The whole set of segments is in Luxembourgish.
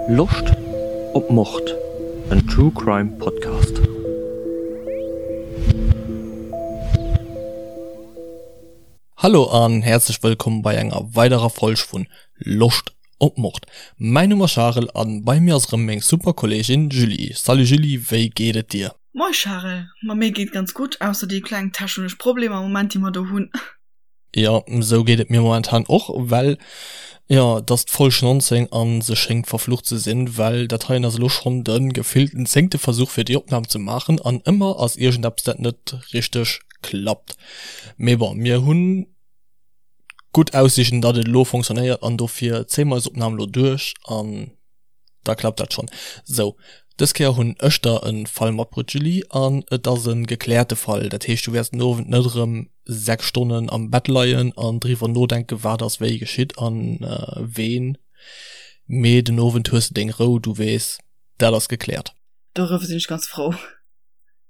Loscht op Mord? En True Crime Podcast. Hallo an häerzlech wëllkomm bei enger weiderer Folg vun Loscht op Mord. Mäin Numm ass Charel an bei mir ass erëm meng super Kolleegin Julie. Salut Julie, wéi geet et dir? Moi Charel, ma mir geet ganz gutt, ausser déi kleng techenesch Problemer am Moment déi mer do hunn. Jo, sou geet et mir momentan och, well jo, et ass d'Folg 19 an se schéngt verflucht ze sinn, well dat heien ass elo schonn de gefillten zéngte Versuch fir déi Opnam ze maachen an ëmmer ass iergendeppes dat net richteg klappt. Mee bon, mir hunn gutt Aussiichten datt et elo fonctionnéiert an dofir zéie mer eis Opnam elo duerch an da klappt dat schonn. Sou, dës Kéier hunn ech der e Fall matbruet Julie an et ass e gekläerte Fall, dat heescht du wäerts den Owend net erëm 6 Stonnen am Bett leien an driwwer nodenken wat ass wéi geschitt an ween, mee den Owend hues de deng Rou, du weess dat ass gekläert. Doriwwer sinn ech ganz frou.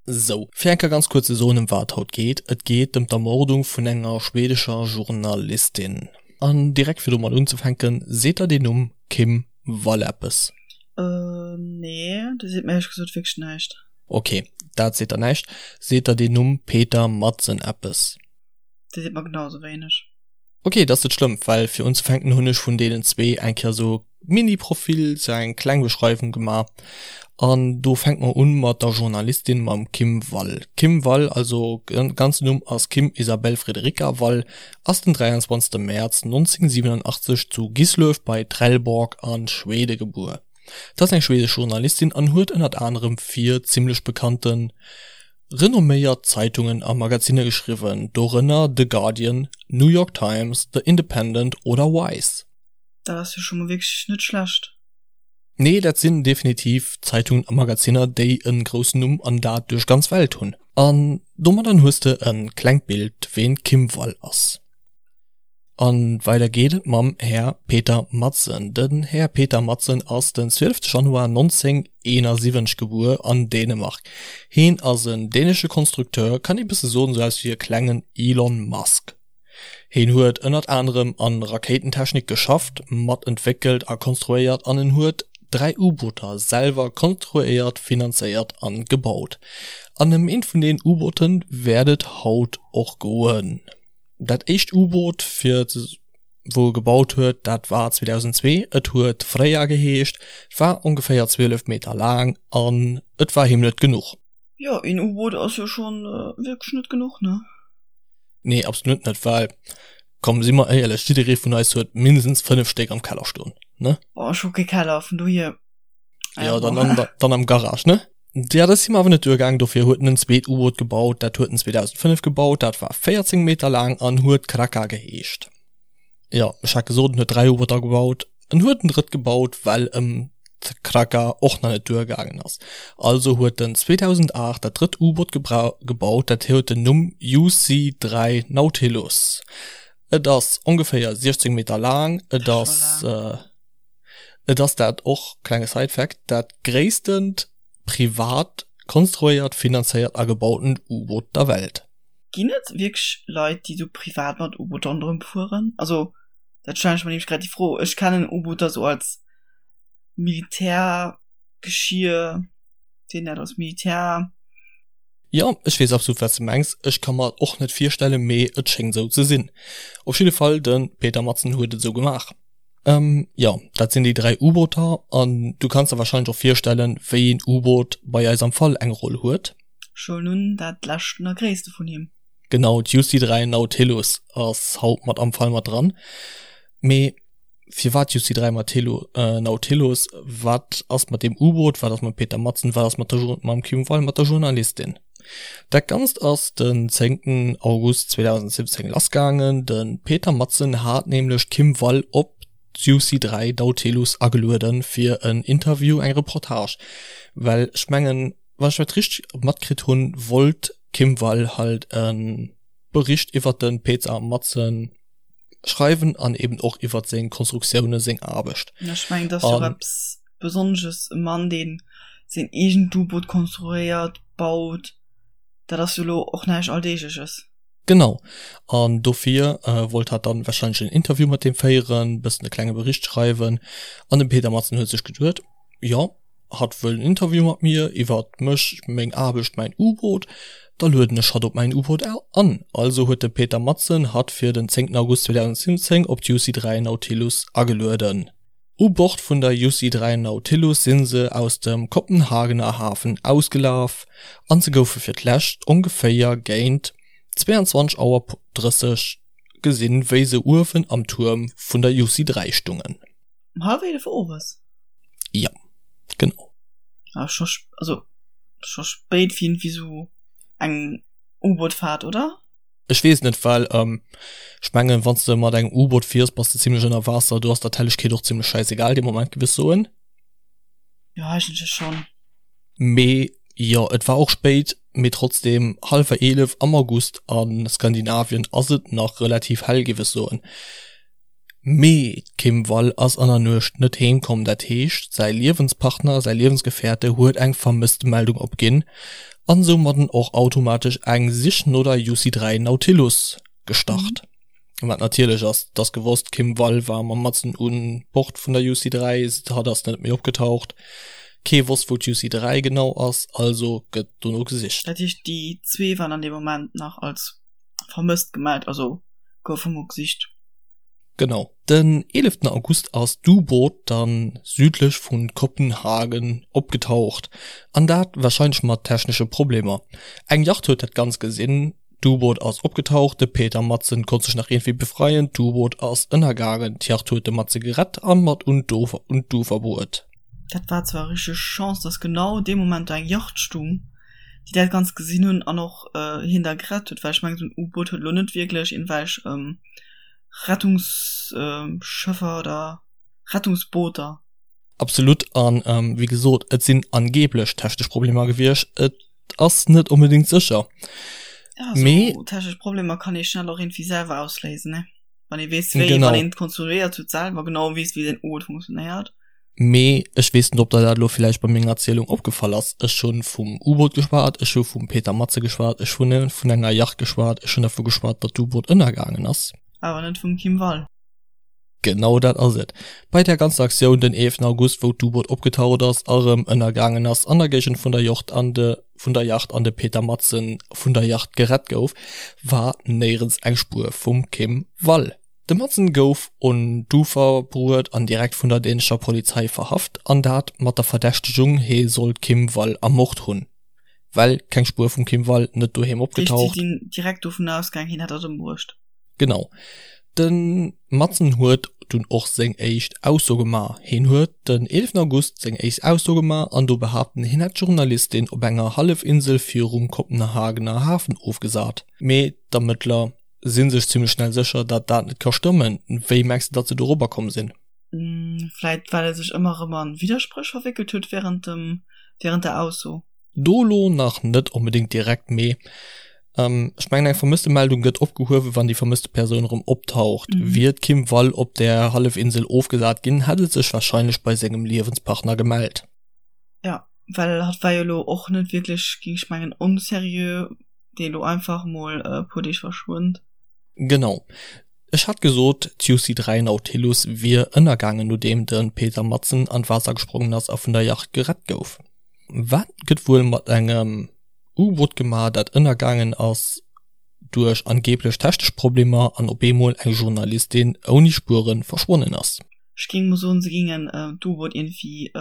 Sou, fir eng Kéier ganz kuerz ze soen ëm wat et haut geet, Et geet ëm d'Ermordung vun enger schwedescher Journalistin. An direkt fir domat unzefänken, seet der deen Numm Kim Wall eppes? Nee, dee seet mir éierlech gesot wierklech näischt. Ok, dat seet der näischt. Seet der deen Numm Peter Madsen eppes? Dee seet mer genau sou wéineg. Ok, dat ass net schlëmm, well fir unzefänken hunn ech vun deenen zwee eng Kéier sou Mini-Profil, sou eng kleng Beschreiwung gemaach. An do fänke mer un mat der Journalistin, mam Kim Wall. Kim Wall, also ganzen Numm ass Kim Isabel Frederica Wall, ass den 23 Mäerz 1987 zu Gislöv bei Trelleborg a Schwede gebuer. Et ass eng schwedesch Journalistin an huet ënnert anerem fir zimmlech bekannten, renomméiert Zeitungen a Magazinne geschriwwen, dorënner The Guardian, New York Times, The Independent oder Vice. Dat ass jo scho mol wierklech net schlecht. Nee, dat sinn definitiv Zeitungen a Magazinner, déi e groussen Numm an dat duerch ganz Welt hunn. An domadden hues de e klengt Bild, ween d'Kim Wall ass. An weider geet et mam Här Peter Madsen. Den Här Peter Madsen ass den 12 Januar 1971 gebuer an Dänemark. Heen ass en dänesche Konstrukteur, kann ee bësse soen sou aus wéi e klengen Elon Musk. Heen huet ënnert anerem an Rakéitentechnik geschafft, mat entwéckelt a konstruéiert an en huet 3 U-Booter selwer konstruéiert, finanzéiert an gebaut. An ëm eent vun den U-Booten wäert et haut och goen. Dat éischt U-Boot fir wou e gebaut huet, dat war 2002. Et huet Freya geheescht, war ongeféier 12 Meter laang an et war him net genuch. Jo, een U-Boot ass jo schonn wierklech net genuch, ne? Nee, absolut net, well komm, si mer éierlech, jidderee vun eis huet mindestens 5 Stéck am Keller stoen, ne? Oh, ech hu kee Keller, vun dohier. Jo, dann an der, dann am Garage, ne? Ja, dat ass him awer net duergaang, dofir huet en en zweet U-Boot gebaut. Dat huet en 2005 gebaut, dat war 14 Meter laang an huet Kraka geheescht. Jo, ech hat gesot, en huet 3 U-Booter gebaut. En huet en drëtt gebaut, well em d'Kraka och nach net duergaangen ass. Also huet en 2008 dat drëtt U-Boot gebaut, dat huet den Numm UC-3 Nautilus. Et ass ongeféier 16 Meter laang, et ass. Et ass dat och, klenge Side-Fact, dat gréisstent privat konstruéiert, finanzéiert a gebautent U-Boot der Welt. Ginn et wierklech Leit, déi sou privat mat U-Booter ronderëm fueren? Also, dat stellen ech mer nämlech grad déi Fro. Ech kennen U-Booter sou als Militärgeschier, seet een dat, als Militär. Jo, ech weess absolut wat s de mengs. Ech ka mer et och net virstellen, mee et schéngt esou ze sinn. Op jidde Fall, de Peter Madsen huet et esou gemaach. Jo, dat sinn déi 3 U-Booter an du kanns der wahrscheinlech och virstellen, wéi een U-Boot bei eis am Fall eng Roll huet. Ech huelen un, dat leschten a gréisste vun him. Genau, d'UC 3 Nautilus ass haut mat am Fall mat dran. Mee firwat UC 3 Nautilus? Wat ass mat deem U-Boot? Wat ass mam Peter Madsen? Wat ass mat der mam Kim Wall, mat der Journalistin? Dat Ganzt ass den zéngten August 2017 lassgaangen. De Peter Madsen hat nämlech d'Kim Wall op d'UC 3 Nautilus agelueden fir en Interview, eng Reportage. Well ech mengen, wann ech dat richteg matkritt hunn, wollt d'Kim Wall halt e Bericht iwwert de Peter Madsen schreiwen an eben och iwwert seng Konstruktioune, seng Aarbecht. Ech mengen, dat ass jo och eppes Besonnesches, e Mann, dee seng eegent U-Boot konstruéiert, baut, dat ass jo elo och näischt Alldeegleches. Genau, an dofir wollt hat dann wahrscheinlech en Interview mat deem féieren, bëssen e klenge Bericht schreiwen an de Peter Madsen huet sech geduet, jo, hatt wëll en Interview mat mir iwwert mech, meng Aarbecht, mäin U-Boot, da lueden ech hatt op mäin U-Boot an. Also huet de Peter Madsen hatt fir den 10 August 2017 op d'UC 3 Nautilus agelueden. U Bord vun der UC 3 Nautilus si se aus dem Kopenhagener Hafen ausgelaf an se goufe fir d'lescht ongeféier géint 22 Auer 30 gesinn, wéi se uewen am Tuerm vun der UC 3 stungen. Um hallwer 11 owes? Jo, genau. Ah, scho, also scho spéit fir iergendwéi sou eng U-Boot-Fahrt, oder? Ech weess net, well ech mengen, wann s de mat engem U-Boot fiers, bass de zimlech ënner Waasser, do ass der d'Hellegkeet och zimlech schäisegal dee Moment, giff ech soen. Jo, eigentlech schonn. Mee jo, et war och spéit, mee trotzdem, hallwer 11 am August a Skandinavien ass et nach relativ hell, giff ech soen. Mee d'Kim Wall ass an der Nuecht net heem komm, dat heescht säi Liewenspartner, säi Liewensgefährte huet eng Vermësstemeldung opginn an soumadden och automatesch eng Sich no der UC 3 Nautilus gestart. Wat natierlech ass, et ass gewosst, d'Kim Wall war mam Madsen un Bord vun der UC 3, hatt ass net méi opgetaucht, kee wosst wou d'UC 3 genau ass, also gëtt dono gesicht. Dat heescht déi zwee waren an deem Moment nach als vermësst gemellt, also goufe mol gesicht. Genau. Den 11 August ass d'U-Boot dann südlech vu Kopenhagen opgetaucht, an dat warscheinlech mat technesche Problemer. Eng Yacht huet dat Ganzt gesinn, d'U-Boot ass opgetaucht, de Peter Madsen konnt sech nach iergendwéi befreien, d'U-Boot ass ënnergaangen, d'Yacht huet de Madsen gerett a mat un d'Ufer bruet. Dat war zwar richteg Chance, dass genau dee Moment do eng Yacht stung, déi dat Ganzt gesinn hunn an och hien da gerett huet, well ech mengen esou en U-Boot huet elo net wierklech iergendwelch Rettungsschëffer oder Rettungsbooter. Absolut, an wéi gesot, et sinn angeblech technesch Problemer gewiescht, et ass net onbedéngt sécher. Ja, mee esou technesch Problemer kann ee schnell och iergendwéi selwer ausléisen, ne? Wann ee weess wéi, wann een et konstruéiert huet selwer, genau weess wéi den U-Boot funktionéiert. Mee ech weess net, ob der dat elo villäicht bei menger Erzielung opgefall ass, Ech hu vum U-Boot geschwat, ech hu vum Peter Matze geschwat, ech hu vun enger Yacht geschwat, ech hunn dervu geschwat, datt d'U-Boot ënnergaangen ass. Awer net vum Kim Wall. Genau dat ass et. Bei där ganzer Aktioun den 11 August, wou d'U-Boot opgetaucht ass a rëm ënnergaangen ass an der Géigend vun der Yacht an de vun der Yacht an de Peter Madsen vun der Yacht gerett gouf, war néierens eng Spuer vum Kim Wall. De Madsen gouf un d'Ufer bruet an direkt vun der dänescher Polizei verhaft, an dat mat der Verdächtegung, hee soll d'Kim Wall ermort hunn. Well keng Spuer vum Kim Wall, net doheem opgetaucht. Si sinn direkt dovun ausgaang, hien hätt hatt ëmbruecht. Genau. De Madsen huet dunn och seng éischt Ausso gemaach. Hien huet den 11 August seng éischt Ausso gemaach an do behaapten, hien hätt d'Journalistin op enger Hallefinsel virum Kopenhagener Hafen ofgesat. Mee d'Ermëttler sinn sech zimlech schnell sécher, dat dat net ka stëmmen. Wéi mengs de, datt se dorobber komm sinn? Vläit well e sech ëmmer erëm a Widderspréch verwéckelt huet während dem, während der Ausso. Do lo nach net onbedéngt direkt, mee ech mengen eng Vermësstemeldung gëtt opgehuewen, wann déi vermësste Persoun erëm optaucht. Wier d'Kim Wall op där Hallefinsel ofgesat ginn, hätt et sech warscheinlech bei sengem Liewenspartner gemellt. Jo, well hatt war jo elo och net wierklech, géing ech mengen, onseriö. dee lo einfach mol e puer Deeg verschwënnt. Genau. Ech hat gesot, d'UC 3 Nautilus wier ënnergaangen nodeem de Peter Madsen an d'Waasser gesprongen ass a vun der Yacht gerett gouf. Wat gëtt wuel mat engem U-Boot gemaach, dat ënnergaangen ass duerch angeeblech technesch Problemer an op eemol eng Journalistin ouni Spuere verschwonnen ass? Ech géing mol soen, se géingen d'U-Boot iergendwéi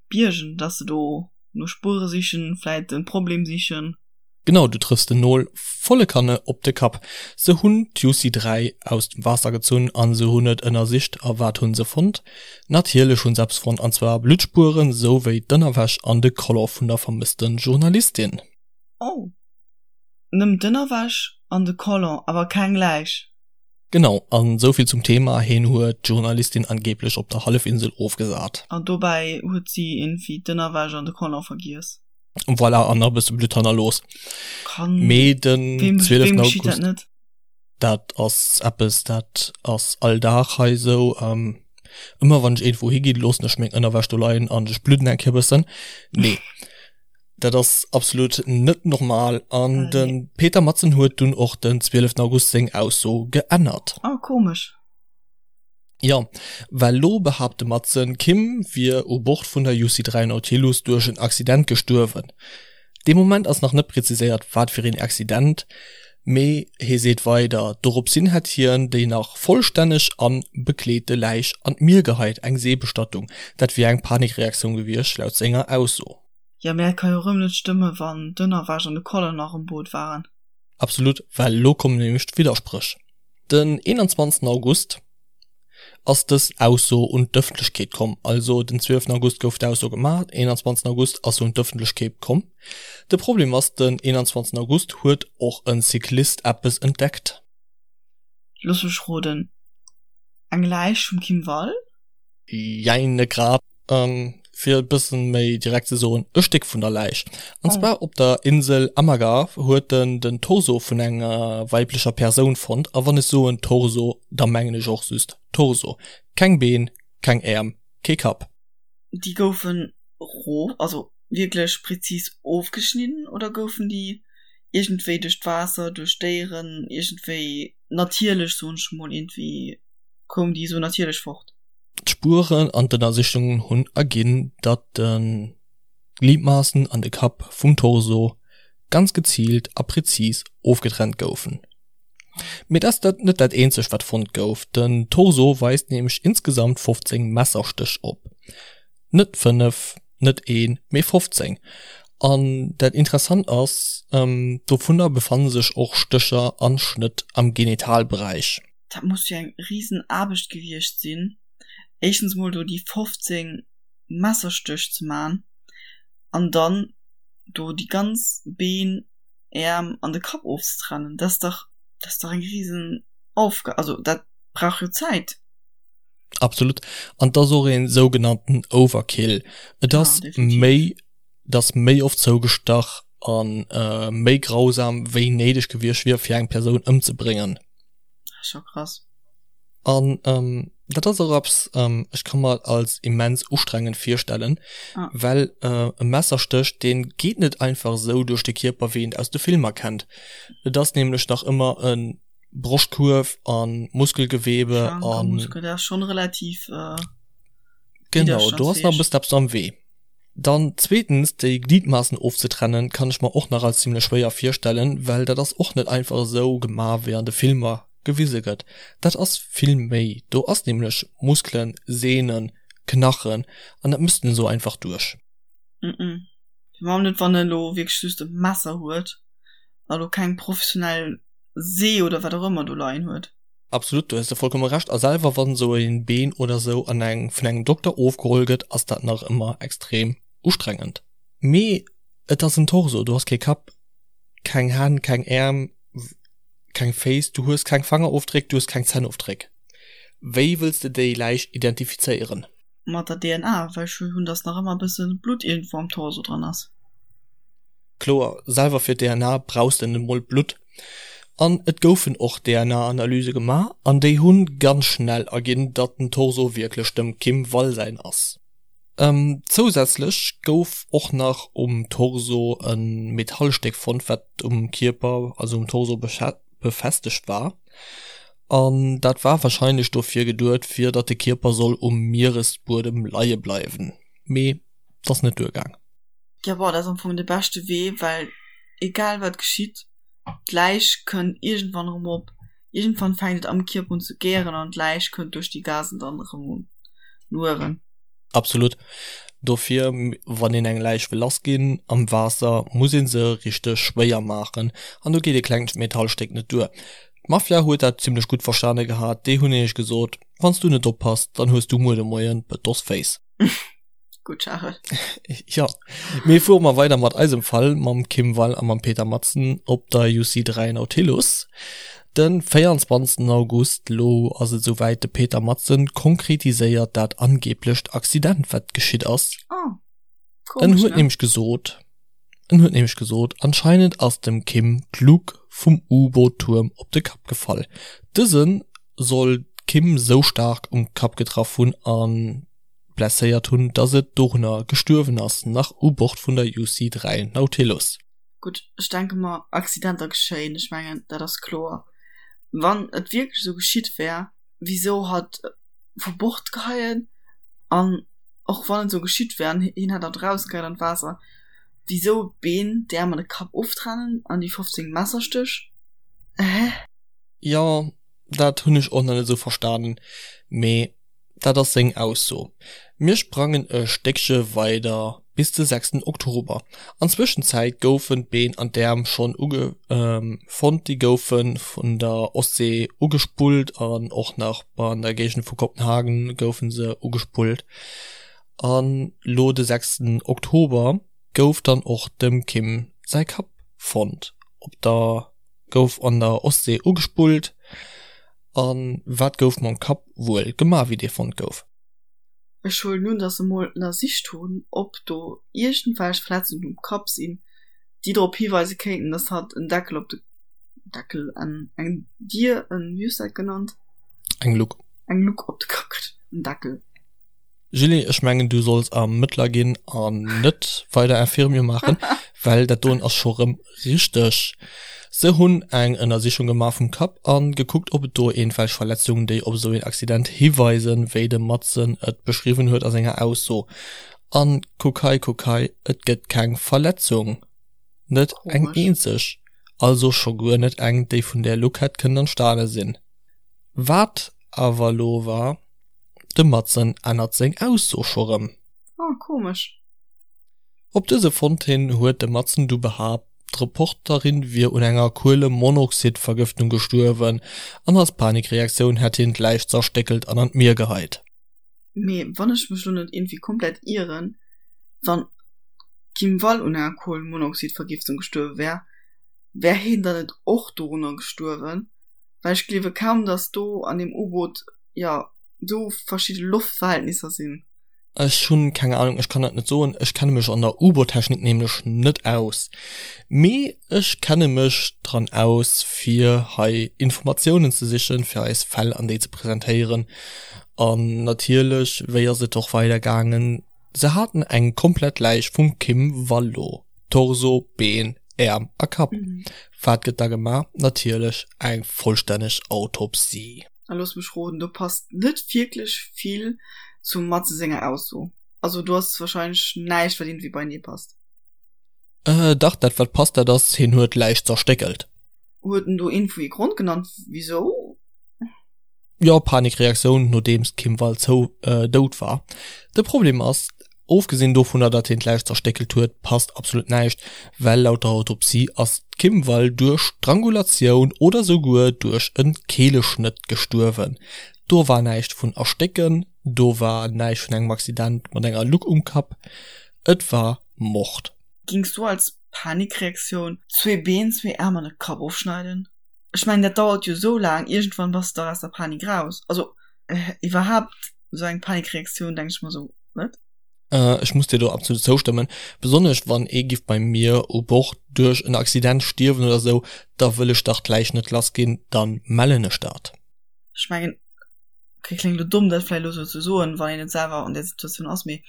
biergen, dass se do no Spuere sichen, vläit de Problem sichen. Genau, du trëffs den Nol volle Kanne op de Kapp. Se hunn d'Juicy 3 aus dem Waasser gezunn an se hunn et ënnersicht. A wat hunn se fonnt? Natierlech hunn se eppes fonnt, an zwar Bluttspueren, sou wéi d'Ënnerwäsch an de Collant vun der vermësste Journalistin. Oh, nëmmen d'Ënnerwäsch an de Collant, awer keng Läich? Genau, an souvill zum Thema, heen huet d'Journalistin angeblech op der Hallefinsel ofgesat. An dobäi huet si iergendwéi d'Ënnerwäsch an de Collant vergiess. Voilà, an nach e bësse Blutt hannerlooss. Kann, Mee den wem, 12. wem geschitt dat August, net? dat ass eppes, dat ass all Dag hei esou. Ähm, ëmmer wann ech iergendwou higinn, loossen ech meng Ënnerwäsch do leien an ech bludden eng Kéier e bëssen. Nee. Dat ass absolut net normal an de Peter Madsen huet dunn och den 12 August seng Ausso geännert. Oh, komesch. Jo, well lo behaapt de Madsen, d'Kim wier u Bord vun der UC3 Nautilus duerch en Accident gestuerwen. Dee Moment ass nach net preziséiert, wat fir een Accident, mee hie seet weider, doropshin hätt hien déi nach vollstänneg an bekleete Läich an d'Mier geheit, eng Seebestattung. Dat wier eng Panikreaktioun gewiescht, laut senger Ausso. Jo, mee dat ka jo erëm net stëmmen, wann d'Ënnerwäsch an de Collant nach um Boot waren. Absolut, well elo kommen nämlech d'Widderspréch. Den 21 August ass dës Ausso un d'Ëffentlechkeet komm. Also den 12 August gouf d'Ausso gemaach, den 21 August ass se un d'Ëffentlechkeet komm. De Problem ass, den 21 August huet och e Cyclist eppes entdeckt. Looss mech roden, eng Läich vum Kim Wall? Jein, net grad. Fir et bëssen méi direkt ze soen, e Stéck vun der Läich. An zwar op der Insel Amager huet en den Torso vun enger weiblecher Persoun fonnt. A wann ech soen Torso, da mengen ech och just Torso. Keng Been, keng Äerm, kee Kapp. Déi goufen rof, also wierklech prezis ofgeschnidden oder goufen déi iergendwéi duerch d'Waasser, duerch Déieren, iergendwéi natierlech, soen ech mol, iergendwéi koum déi esou natierlech fort? D'Spueren an d'Ënnersichungen hunn erginn, datt de Gliedmaassen an de Kapp vum Torso ganz geziilt a prezis ofgetrennt goufen. Mee dat ass net dat eenzegt wat fonnt gouf, den Torso weist nämlech insgesamt 15 Messerstéch op. Net 5, net een, mee 15. An dat interessant ass, dovunner befanne sech och Stécher an Schnëtt am Genitalberäich. Dat muss jo eng riesen Aarbecht gewiescht sinn, éischtens mol do déi 15 Messerstéch ze man an dann do déi ganz Been, Äerm an de Kapp ofzetrennen. Dat ass dach, dat ass dach eng riesen Aufgab, also dat brauch jo Zäit. Absolut. An et ass och een sougenannten Overkill. Et ass méi, et ass méi oft zougestach a méi grausam wéi néideg gewiescht wier fir eng Persoun ëmzebréngen. Scho krass. An ähm, dat ass och eppes, ähm, ech ka mer als immens ustrengend virstellen, ah. well äh, e Messerstéch, deen geet net einfach esou duerch de Kierper, wéi een aus de Filmer kennt. Et ass nämlech nach ëmmer e Broschtkuerf an Muskelgewebe an. Muskel, dat ass schon relativ. Äh, genau, do ass nach e bëssen eppes am Wee. Dann zweetens, déi Gliedmaßen ofzetrennen, kann ech mer och nach als zimlech schwéier virstellen, well dat ass och net einfach esou gemaach wéi an de Filmer gewise gëtt. Dat ass vill méi, do ass nämlech Muskelen, Sehnen, Knachen an dat mësst en esou einfach duerch. Mm Firwat net wann en elo wierklech just e Messer huet a lo keng professionell See oder wat och ëmmer do leien huet. Absolut, do hues de vollkomme Recht. A selwer wann esou een Been oder esou an eng vun engem Dokter ofgeholl gëtt, ass dat nach ëmmer extrem ustrengend. Mee et ass en Torso, du has kee Kapp, keng Hänn, keng Äerm, keng Féiss, du hues keng Fangerofdréck, du hues keng Zännofdréck. Wéi wëlls de déi Läich identifizéieren? Mat der DNA, well ech hunn, dass nach ëmmer e bësse Blutt iergendwou am Torso dran ass. Kloer, selwer fir d'DNA brauchs de net mol Blutt. An et goufen och DNA-Analyse gemaach an déi hu ganz schnell erginn, datt den Torso wierklech dem Kim Wall säin ass. Zousätzlech gouf och nach um Torso e Metallstéck fonnt, wat um Kierper, also um Torso befestegt war. An dat war warscheinlech dofir geduet, fir datt de Kierper soll um Mieresbuedem leie bleiwen. Mee 't ass net duergaang. Jo bon, dat ass am Fong de beschte Wee, well egal wat geschitt, d'Läich kënnt iergendwann erëm op. Iergendwann fänkt et am Kierper un ze gären an d'Läich kënnt duerch déi Gasen dann erëm un uewen. Absolut. Dofir, wann een eng Läich wëll lass ginn am Waasser, muss ee se richteg schwéier maachen an do geet e klengt Metallstéck net duer. D'Mafia huet dat zimmlech gutt verstane gehat, déi hunn nämlech gesot, Wann s du net oppass, dann hues du muer de Moien Betosféiss. Gutt, Charel. Jo, mee fuere mer weider mat eisem Fall, mam Kim Wall a mam Peter Madsen op der UC3 Nautilus. De 24 August, lo ass et esouwäit, de Peter Madsen konkretiséiert dat angeblecht Accident, wat geschitt ass. Oh, En komesch, huet ne? nämlech gesot, en huet nämlech gesot, anscheinend ass dem Kim d'Luke vum U-Boot-Tuerm op de Kapp gefall. Dëse soll d'Kim sou staark um Kapp getraff hunn an. blesséiert hunn, dass et dorunner gestuerwen ass, nach u Bord vun der UC 3 Nautilus. Gutt, ech denke mer, Accidenter geschéien, ech mengen, dat ass kloer. Wann et wierklech esou geschitt wär, wisou hatt vu Bord geheien? An och wann et esou geschitt wär an hien hätt hatt erausgeheit an d'Waasser, wisou d'Been, d'Äerm an de Kapp oftrennen an déi 15 Messerstéch? Hä? Jo, dat hunn ech och nach net esou verstanen, mee dat ass seng Ausso. Mir sprangen e Stéckche weider bis de sechsten Oktober. An Zwëschenzäit goufen d'Been an d'Äerm schonn uge fonnt, déi goufe vun der Ostsee ugespullt an och nach an der Géigend vu Kopenhagen goufe se ugespullt. An lo de sechsten Oktober gouf dann och dem Kim säi Kapp fonnt op der gouf an der Ostsee ugespullt. A wat gouf mam Kapp wuel gemaach, wéi dee fonnt gouf? Ech huelen un, dass se mol ënnersicht hunn, ob do iergendwelch Verletzungen um Kapp sinn, déi drop hiweise kéinten, dass hatt en Deckel op de Deckel, en, eng Dier, en, wéi hues de dat genannt? Eng Luck. Eng Luck op de Kapp kritt, en Deckel. Julie, ech mengen du solls Ermëttler ginn an net weider Infirmier maachen, well dat doen ass scho rëm richteg. Se hunn eng Ënnersichung gemaach vum Kapp an gekuckt ob et do eenwelch Verletzungen déi op esou een Accident hiweisen, wéi de Madsen et beschriwwen huet a senger Ausso. An kuck hei, kuck hei, et gëtt keng Verletzung, net eng eenzeg, also scho guer net eng déi vun där Luck hätt kënnen entstane sinn. Wat awer lo war, De Madsen ännert seng Ausso scho rëm. Oh, komesch. Op dëse Fond hin huet de Madsen du behaapt, d'Reporterin wier un enger Kuelemonoxidvergëftung gestuerwen an als Panikreaktioun hätt hien d'Läich zerstéckelt an an d'Mier geheit. Mee wann ech mech lo net iergendwéi komplett ieren, wann d'Kim Wall un enger Kuelemonoxidvergiftung gestuerwe wär, wär hien dann net och dorunner gestuerwen? Well ech gleewe kaum, dass do an deem U-Boot, jo, esou verschidde Loftverhältnisser sinn. Ech hunn keng Ahnung, ech kann dat net soen. Ech kenne mech an der U-Boot-Technik nämlech net aus. Mee ech kenne mech dran aus, fir hei Informatiounen ze sichen, fir eis Fäll an déi ze presentéieren. An natierlech, wéi ass et och weider gaangen? Se haten eng komplett Läich vum Kim Wallo, Torso, Been, Äerm a Kapp. Wat gëtt da gemaach? Natierlech eng vollstänneg Autopsie. A looss mech roden, do passt net wierklech vill zum Matze senger Ausso. Also do ass wahrscheinlech näischt wat iergendwéi beienee passt. Äh dach, dat wat passt, dat ass, hien huet d'Läich zerstéckelt. Huet en do iergendwou ee Grond genannt wisou? Jo, Panikreaktioun nodeems d'Kim Wall zou dout war. De Problem ass, ofgesinn dovunner datt hien d'Läich zerstéckelt huet, passt absolut näischt, well laut der Autopsie ass d'Kim Wall duerch Strangulatioun oder souguer duerch e Keeleschnëtt gestuerwen. Do war näischt vun erstécken, do war näischt vun engem Accident mat enger Luck um Kapp, et war Mord. Gings du als Panikreaktioun zwee Been, zwee Äerm an e Kapp ofschneiden? Ech mengen dat dauert jo sou laang, iergendwann bass de dach aus der Panik raus. Also iwwerhaapt sou eng Panikreaktioun denk ech mer sou, wat? Ech muss dir do absolut zoustëmmen, besonnesch wann ee giff bei mir u Bord duerch en Accident stierwen oder sou, da wëll ech dach d'Läich net lass ginn, dann mellen ech dat. Ech mengen, okay kléngt elo domm dat vläicht elo sou ze soen, wann een net selwer an där Situatioun ass, mee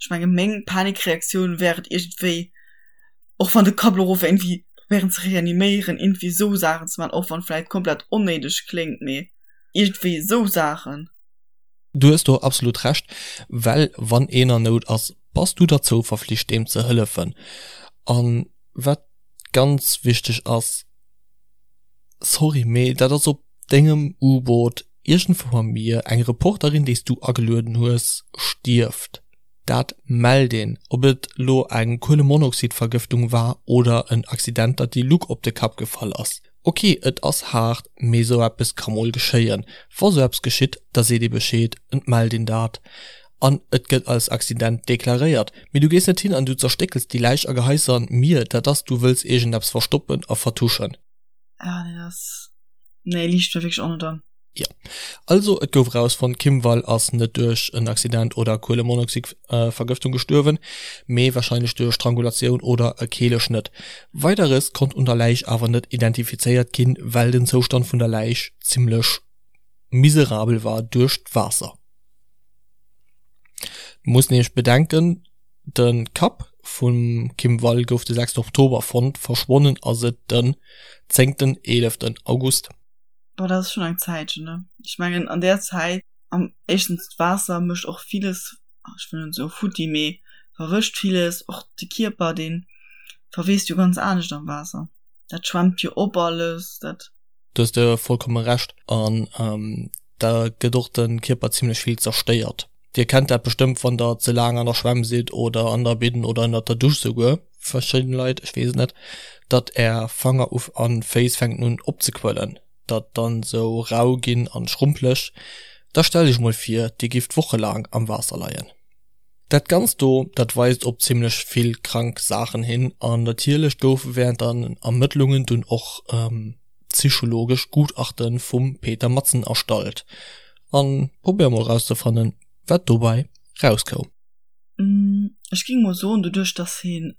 ech menge meng Panikreaktioun wär et iergendwéi, och wann de Kapp lo erof wär, iergendwéi probéieren ze reaniméieren, iergendwéi sou Saachen ze maachen, och wann vläicht komplett onnéideg kléngt, mee iergendwéi sou Saachen. Du hues do absolut Recht, well wann een an Nout ass, bass du derzou verflicht deem ze hëllefen. An wat ganz wichteg ass, sorry, mee dat ass op dengem U-Boot iergendwou am Mier, eng Reporterin déi s du agelueden hues stierft. Dat mellt een, ob et lo eng Kuelemonoxidvergëftung war oder en Accident, datt déi Luck op de Kapp gefall ass. Ok, et ass haart, mee sou eppes ka mol geschéien. Wa sou eppes geschitt, da seet ee Bescheed, et mellt een dat an et gëtt als Accident deklaréiert. Mee du gees net hin an du zerstéckels déi Läich a geheis se an d'Mier, dat ass, du wëlls iergendeppes verstoppen a vertuschen. Ah nee, dat ass, nee, liicht mir wierklech och net an. Jo. Also et gouf erausfonnt, d'Kim Wall ass net duerch en Accident oder Kuelemonoxidvergëftung gestuerwen, mee warscheinlech duerch Strangulatioun oder e Keeleschnëtt. Weideres konnt un der Läich awer net identifizéiert ginn, well den Zoustand vun der Läich zimmlech miserabel war duerch d'Waasser. Muss nämlech bedenken, de Kapp vum Kim Wall gouf de 6 Oktober fonnt, verschwonnen ass et den zéngten, eeleften August. Boah, dat ass schonn eng Zäitchen, ne? Ech mengen an där Zäit, am éischtens d'Waasser mécht och villes, ech wëll net soe futti, mee verwëscht villes, och de Kierper, dee verweest jo ganz anescht am Waasser, dat schwemmt jo op alles, dat. Do hues de vollkomme Recht an da gëtt och de Kierper zimlech vill zerstéiert. Dir kennt dat bestëmmt wann der ze laang an der Schwämm sidd oder an der Binn oder ënnert der Dusch souguer, verschidden Leit, ech weess et net, datt är Fanger uf an Féiss fänken un opzequëllen, datt dann sou rau ginn an schrumpeleg. Da stellt iech mol vir dir gifft wochelaang am Waasser leien. Dat ganzt do, dat weist op zimlech vill krank Saachen hin an natierlech goufe während den Ermëttlungen dunn och psychologesch Gutachte vum Peter Madsen erstallt. An probéier mol rauszefannen wat dobäi rauskoum. Ech ging mol soen, doduerch dass heen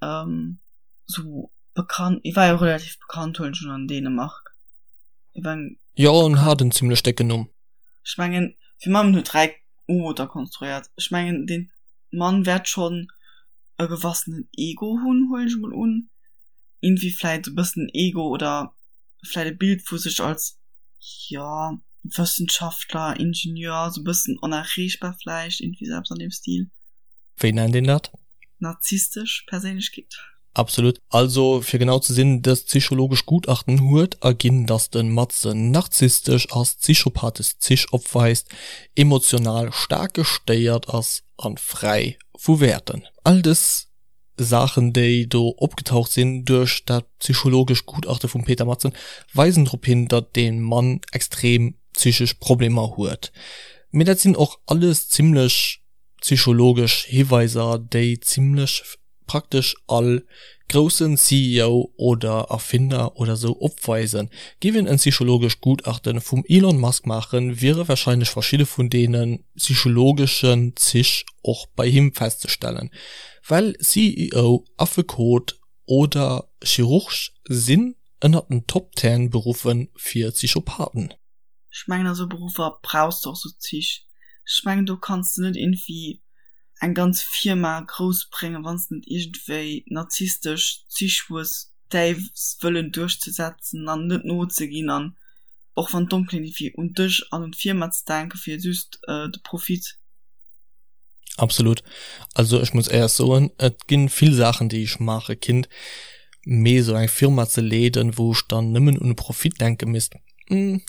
sou bekannt, hie war jo relativ bekannt huelen ech un an Dänemark, hie war eng. Jo en hat en zimlech décken Numm. Ech mengen fir Mammen huet 3 U-Booter konstruéiert, ech mengen deen Mann wäert schonn e gewassenen Ego hunn, huelen ech mol un, iergendwéi vläit e bëssen Ego oder vläit e Bild vu sech als, jo, Wëssenschaftler, Ingenieur, sou e bëssen onerreechbar vläicht, iergendwéi sou eppes an deem Stil. Wéi nennt een dat? Narzisstesch Perséinlechkeet. Absolut. Also fir genau ze sinn, dëst psychologesch Gutachten huet erginn, datt de Madsen narzisstesch ass, psychopathesch Zich opweist, emotional staark gestéiert ass a fräi vu Wäerten. All dës Saachen, déi do opgetaucht sinn duerch dat psychologescht Gutachte vum Peter Madsen, weisen drop hin, datt dee Mann extrem psychesch Problemer huet. Mee dat sinn och alles zimmlech psychologesch Hiweiser, déi zimmlech praktesch all groussen CEO oder Erfinder oder sou opweisen. Giff een en psychologescht Gutachten vum Elon Musk maachen, wiere wahrscheinlech verschidde vun deene psychologeschen Zich och bei him festzestellen, well CEO, Affekot oder Chirurg sinn ënnert den Top Ten Beruffe fir Psychopathen. Ech mengen a sou Beruffer brauchs de och sou Zich. Ech mengen do kanns de net iergendwéi eng ganz Firma grouss bréngen, wann s de net iergendwéi narzisstesch Zich hues, däi Wëllen duerchzesetzen an net nozeginn an och wann d'domm kléngt, iergendwéi un dech an un d'Firma ze denken, fir just de Profit. Absolut. Also ech muss éiers soen, et ginn vill Saachen déi ech maache kinnt, mee esou eng Firma ze leeden, wou ech dann nëmmen un de Profit denke misst, nee.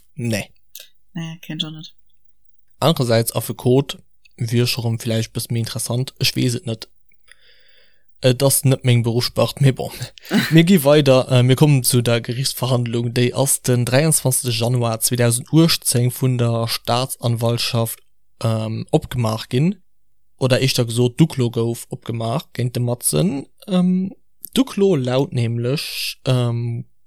Nee, kéint ech och net. Anerersäits Affekot wier scho rëm villäicht bësse méi interessant, ech weess et net. Et ass net meng Beruffsspart, mee bon. Mir gi weider, mir kommen zu der Gerichtsverhandlung, déi ass den 23 Januar 2018 vun der Staatsanwaltschaft opgemaach ginn, oder éischter gesot d'Uklo gouf opgemaach géint de Madsen. D'Uklo laut nämlech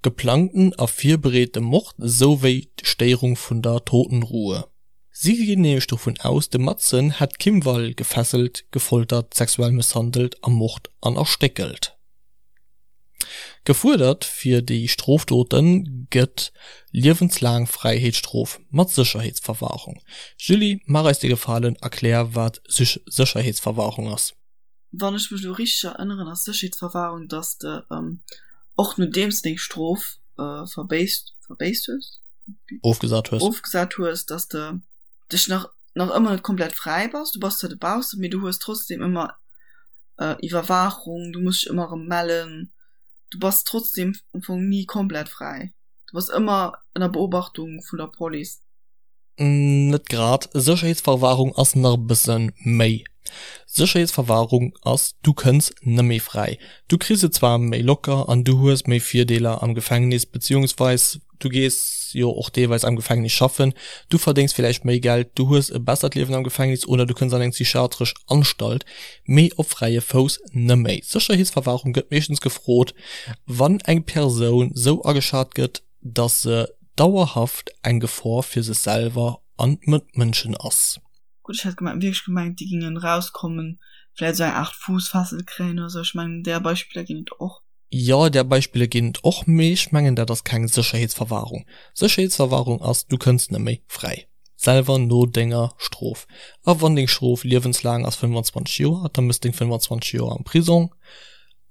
geplangten a virbereete Mord souwéi d'Stéierung vun der Totenruhe. Si ginn nämlech dovun aus, de Madsen hätt d'Kim Wall gefesselt, gefoltert, sexuell mësshandelt, ermort an erstéckelt. Gefuerdert fir déi Strofdote gëtt liewenslaang Fräiheetsstrof mat Sécherheetsverwahrung. Julie, maach eis de Gefalen, erklär wat Sécherheetsverwahrung ass. Wann ech mech elo richteg erënneren, ass Sécherheetsverwahrung, dass de och nodeems de deng Strof verbéisst, verbéisst hues? Ofgesat hues. Ofgesat hues, dass de dech nach, nach ëmmer net komplett fräi bass. Du bass zwar dobaussen, mee du hues trotzdem ëmmer Iwwerwaachung, du muss dech ëmmer erëm mellen. Du bass trotzdem am Fong ni komplett fräi. Du bass ëmmer ënner Beobachtung vun der Police. Net grad. Sécherheetsverwahrung ass nach e bësse méi. Sécherheetsverwahrung ass, du kënns nëmméi fräi. Du kriss et zwar méi locker an du hues méi Virdeeler am Gefängnis, beziehungsweis du gees jo och deelweis am Gefängnis schaffen, du verdéngs villäicht méi Geld, du hues e bessert Liewen am Gefängnis oder du kënns an eng psychiatresch Anstalt, mee op fräie Fouss nëmméi. Sécherheetsverwahrung gëtt meeschtens gefrot, wann eng Persoun sou ageschat gëtt, dass se dauerhaft eng Gefor fir sech selwer an d'Mëtmënschen ass. Gutt, ech hat wierklech gemengt, déi gingen rauskommen, vläit esou eng Art Fuussfessel kréien oder sou. Ech mengen, där Beispiller ginn et och. Jo, där Beispiller ginn et och, mee ech mengen, dat ass keng Sécherheetsverwahrung. Sécherheetsverwahrung ass, du kënns net méi fräi. Selwer no denger Strof. A wann deng Strof liewenslaang ass, 25 Joer, da mëss deng 25 Joer am Prisong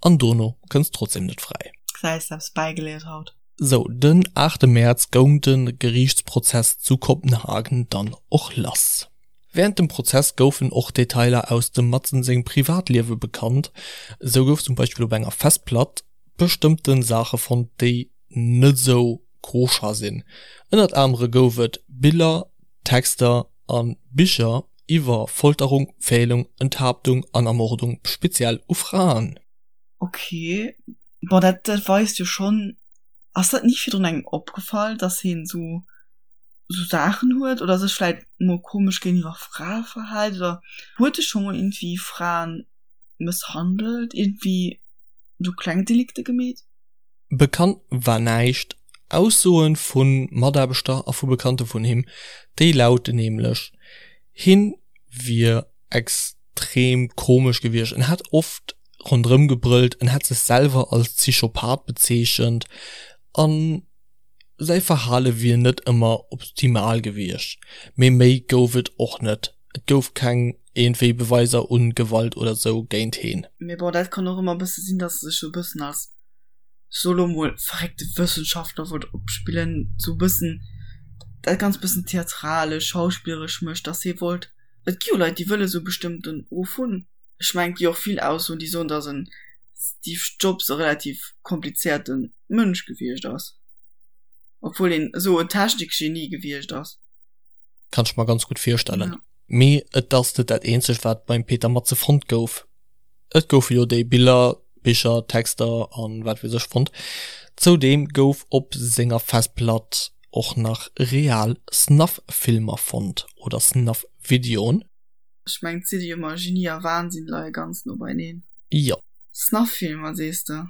an dono kënns trotzdem net fräi. Gesäis, eppes bäigeléiert haut. Sou, den aachte Mäerz goung de Geriichtsprozess zu Kopenhagen dann och lass. Wärend dem Prozess goufen och Detailer aus dem Madsen sengem Privatliewe bekannt. Esou gouf zum Beispill op enger Festplatt bestëmmte Saache fonnt, déi net esou koscher sinn. Ënnert anere gouf et Biller, Texter a Bicher iwwer Folterung, Pfählung, Enthaaptung an Ermordung, speziell u Fraen. Ok, bon dat dat weist jo schonn, ass dat ni virdrun engem opgefall, dass heen sou sou Saachen huet oder sech vläit mol komesch géintiwwer Frae verhält oder huet e scho mol iergendwéi Fraen mësshandelt, iergendwéi sou kleng Delikte gemeet? Bekannt war näischt. Aussoe vu Mataarbechter a vu Bekannte vun him, déi lauten nämlech, hien wier extrem komesch gewiescht, en hätt oft ronderëm gebrëllt, en hätt sech selwer als Psychopath bezeechent a säi Verhale wier net ëmmer optimal gewiescht. Mee méi gouf et och net, et gouf keng iergendwéi Beweiser u Gewalt oder sou géint heen. Mee bon, dat kann och ëmmer e bësse sinn, dass e sech sou e bëssen als so lo mol verréckte Wëssenschaftler wollt opspillen, sou bëssen dat ganz bëssen theatralesch, schauspilleresch mécht, dass hie wollt, et gi jo Leit, déi wëlle sou bestëmmten Ruf hunn. Ech mengen, et gi och vill Aussoen, déi soen, dass en Steve Jobs e relativ komplizéierte Mënsch gewiescht ass, obwuel en esou en Technikgenie gewiescht ass. Kann ech mer ganz gutt virstellen. Mee et ass net dat eenzegt, wat beim Peter Matze fonnt gouf. Et goufe jo déi Biller, Bicher, Texter an wat weess ech fonnt. Zoudeem gouf op senger Festplatt och nach real Snuff-Filmer fonnt oder Snuff-Videoen. Ech mengen et si jo ëmmer Genie a Wahnsinn leie ganz no beieneen. Jo. Snuff-Filmer sees de?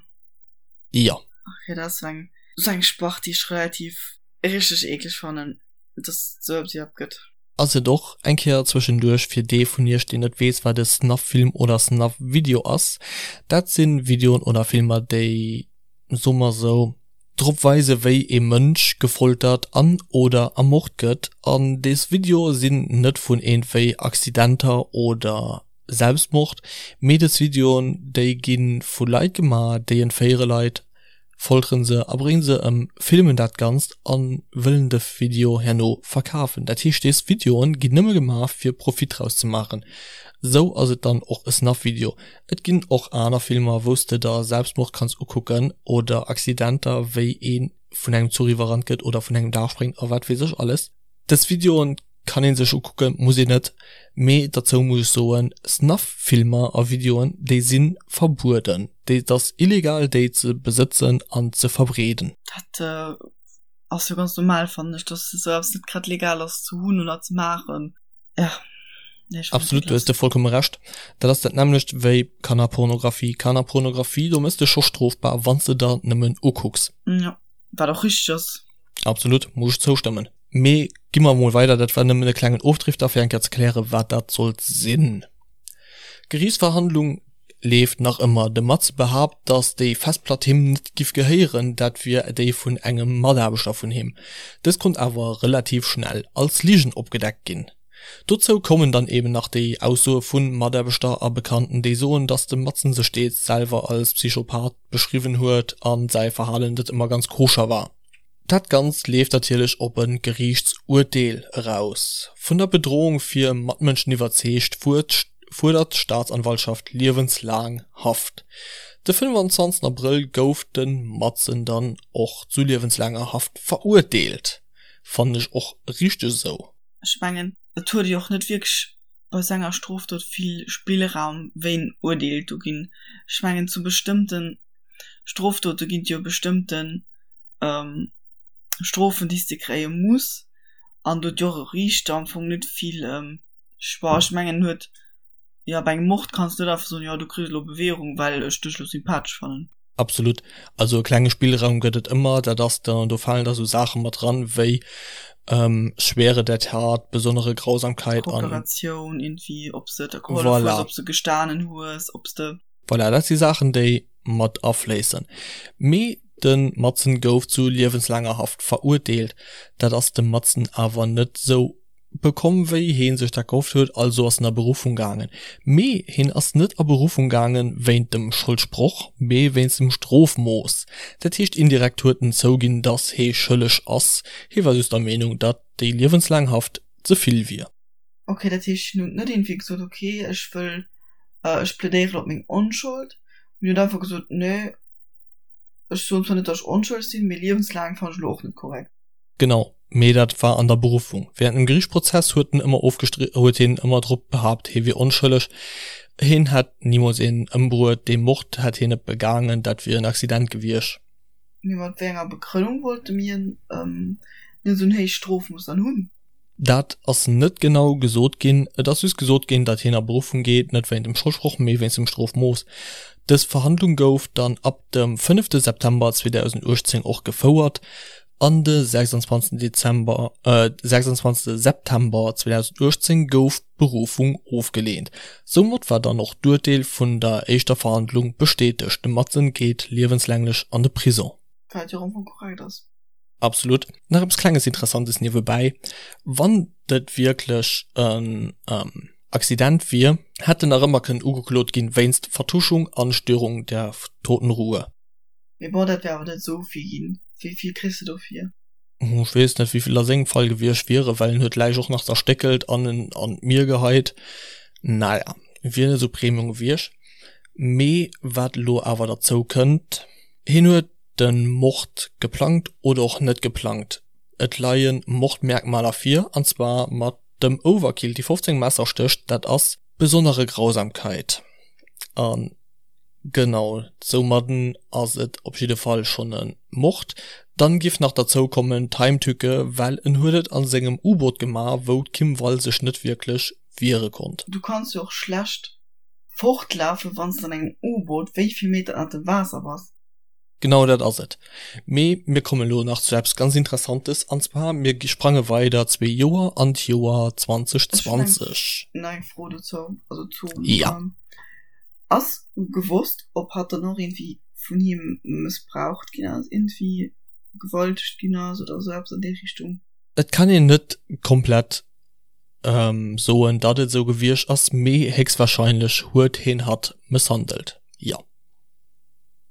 Jo. Ok, dat ass sou eng sou eng Spart déi ech relativ richteg eekleg fannen, dass et sou eppes iwwerhaapt gëtt. Ass et och eng Kéier zwëschenduerch fir dee vun iech deen net weess wat e Snuff-Film oder Snuff-Video ass, dat sinn Videoen oder Filmer déi, soe mer sou, drop weise wéi ee Mënsch gefoltert an oder ermort gëtt an des Videoe sinn net vun iergendwéi Accidenter oder Selbstmord, mee des Videoen déi gi vu Leit gemaach déi entféiere Leit, folteren se a bréngen se ëm, filmen dat Ganzt a wëllen de Video herno verkafen. Dat heescht des Videoen ginn nëmme gemaach fir Profit draus ze maachen. Sou ass et dann och e Snuff Video. Et ginn och aner Filmer wous de der Selbstmord kanns ukucken oder Accidenter wéi ee vun engem Zuch iwwerrannt gëtt oder vun engem Daach spréngt a wat weess ech alles. Des Videoen kann een sech ukucken, muss een net, mee derzou muss ech soen, Snuff-Filmer a Videoen, déi si verbueden, déi, et ass illegal déi ze besëtzen an ze verbreeden. Dat ass jo ganz normal fannen ech, dass esou eppes net grad legal ass ze hunn oder ze maachen, jo. Absolut, do hues de vollkomme Recht. Dat ass dat nämmlecht wéi Kannerpornografie. Kannerpornografie, do mëss de scho strofbar, wann s de der nëmmen ukucks. Jo, wat och richteg ass. Absolut, muss ech zoustëmmen. Mee gi mer emol weider, dat war nëmmen e klengen Ofdrifter fir eng Kéier ze klären, wat dat sollt sinn. D'Geriichtsverhandlung leeft nach ëmmer. De Mats behaapt, datt déi Festplatt him net giff gehéieren, dat wier déi vun engem Mataarbechter vun him. Dës konnt awer relativ schnell als Ligen opgedeckt ginn. Dozou kommen dann eben nach déi Aussoe vu Mataarbechter a Bekannten, déi soen, datt de Madsen sech deels selwer als Psychopath beschriwwen huet a säi Verhalen net ëmmer ganz koscher war. Dat Ganzt leeft natierlech op e Geriichtsurteel eraus. Vun der Bedrohung fir Matmënschen iwwerzeegt, fuerdert d'Staatsanwaltschaft liewenslaang Haft. De 25 Abrëll gouf de Madsen dann och zu liewenslaanger Haft verurteelt. Fannen ech och richteg esou. Ech mengen, et huet jo och net wierklech bei sou enger Strofdot vill Spillraum, wéi en Urteel do ginn. Ech mengen, zu bestëmmte Strofdote ginn et jo bestëmmten Strofen, déi s de kréie muss, an do huet jo och e Riichter am Fong net vill Choix. Ech mengen, en huet, jo, bei engem Mord kanns de net einfach soen, jo, du kriss elo Bewährung, well ech dech elo sympathesch fannen. Absolut. Also e klenge Spillraum gëtt et ëmmer. Dat ass da, do falen da sou Saache mat dran, wéi Schwere der Tat, besondere Grausamkeit an. Kooperatioun, irgendwie, ob s de der gehollef hues, Voilà. ob s de gestanen hues, ob s de. Voilà, dat si Saachen, déi mat afléissen. Mee de Madsen gouf zu liewenslaanger Haft verurteelt. Dat ass dem Madsen awer net sou. bekomm wéi heen sech dat gehofft huet, also ass en a Beruffung gaangen. Mee heen ass net a Beruffung gaangen wéint dem Scholdsproch, mee wéinst dem Strofmooss. Dat heescht indirekt huet en zouginn, datt hee schëlleg ass, hee war just der Meenung, datt déi liewenslaang Haft ze vill wier. Ok, dat heescht hien huet net iergendwéi gesot, ok ech wëll, ech plädéieren op meng Onschold, mee hien huet einfach gesot, nee ech soen zwar net, datt ech onschëlleg sinn, mee liewenslaang fannen ech elo och net korrekt. Genau, mee dat war an der Beruffung. Während dem Geriichtsprozess huet en ëmmer ofgestri huet hien ëmmer drop behaapt, hie wier onschëlleg, hien hätt nimools een ëmbruet, dee Mord hätt hien net begaangen, dat wier en Accident gewiescht. Mee mat wéi enger Begrënnung wollte mir net esou en héicht Strofmooss dann hunn? Dat ass net genau gesot ginn. Et ass just gesot ginn, datt hien a Beruffung geet, net wéint dem Scholdsproch, mee wéinst dem Strofmooss. Dës Verhandlung gouf dann ab dem fënnefte September 2018 och gefouert an de 26 Dezember, 26 September 2018 gouf d'Berufung ofgeleent. Soumat war dann och d'Urteel vun der éischter Verhandlung bestätegt, de Madsen geet liewenslänglech an de Prison. Wat jo am Fong korrekt ass. Absolut. Nach eppes klenges Interessantes niewebäi, Wann et wierklech en Accident wier, hätt en nach ëmmer kënnen ugeklot ginn wéinst Vertuschung an Störung der Totenruhe. Mee bon, dat wär awer net esou vill ginn. Wéi vill kriss de dofir? Ech weess net, wéi vill a sengem Fall gewiescht wieren, well en huet d'Läich och nach zerstéckelt an en an d'Mier geheit. Naja, wier net esou Premium gewiescht. Mee wat elo awer derzou kënnt, hien huet den Mord geplangt oder och net geplangt, et leien Mordmerkmaler vir, an zwar mat dem Overkill, déi 15 Messerstéch, dat ass besonnere Grausamkeit, an genau soumadden ass et op jidde Fall schonn e Mord. Dann giff nach derzou kommen d'Heimtücke, well en huet et an sengem U-Boot gemaach, wou d'Kim Wall sech net wierklech wiere konnt. Du kanns jo och schlecht fortlafen, wanns de an engem U-Boot wéi vill Meter ënnert dem Waasser bass. Genau dat ass et. Mee mir kommen elo nach zu eppes ganz Interessantes, an zwar mir sprange weider zwee Joer an d'Joer 2020. Ech hunn eng Fro dozou, also zu. Ja. Ass gewosst, ob hatt dann och iergendwéi vun him mëssbraucht ginn ass, iergendwéi vergewaltegt ginn ass oder esou eppes an déi Richtung? Et kann een net komplett soen, datt et esou gewiescht ass, mee héchstwahrscheinlech huet hien hatt mësshandelt, jo.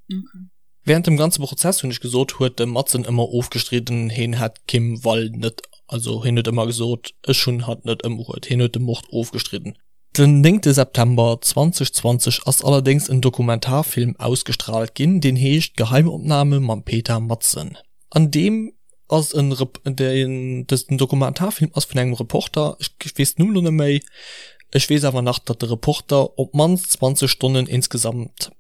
Okay. Während dem ganze Prozess, hunn ech gesot, huet de Madsen ëmmer ofgestridden, hien hätt d'Kim Wall net, also hien huet ëmmer gesot, ech hunn hatt net ëmbruet, hien huet de Mord ofgestridden. Den néngte September 2020 ass allerdéngs en Dokumentarfilm ausgestraalt ginn, deen heescht Geheimopname mam Peter Madsen. An deem ass en Rep, deen, dësen Dokumentarfilm ass vun engem Reporter, ech weess den Numm elo net méi, ech weess awer nach, datt de Reporter op d'mannst 20 Stonnen insgesamt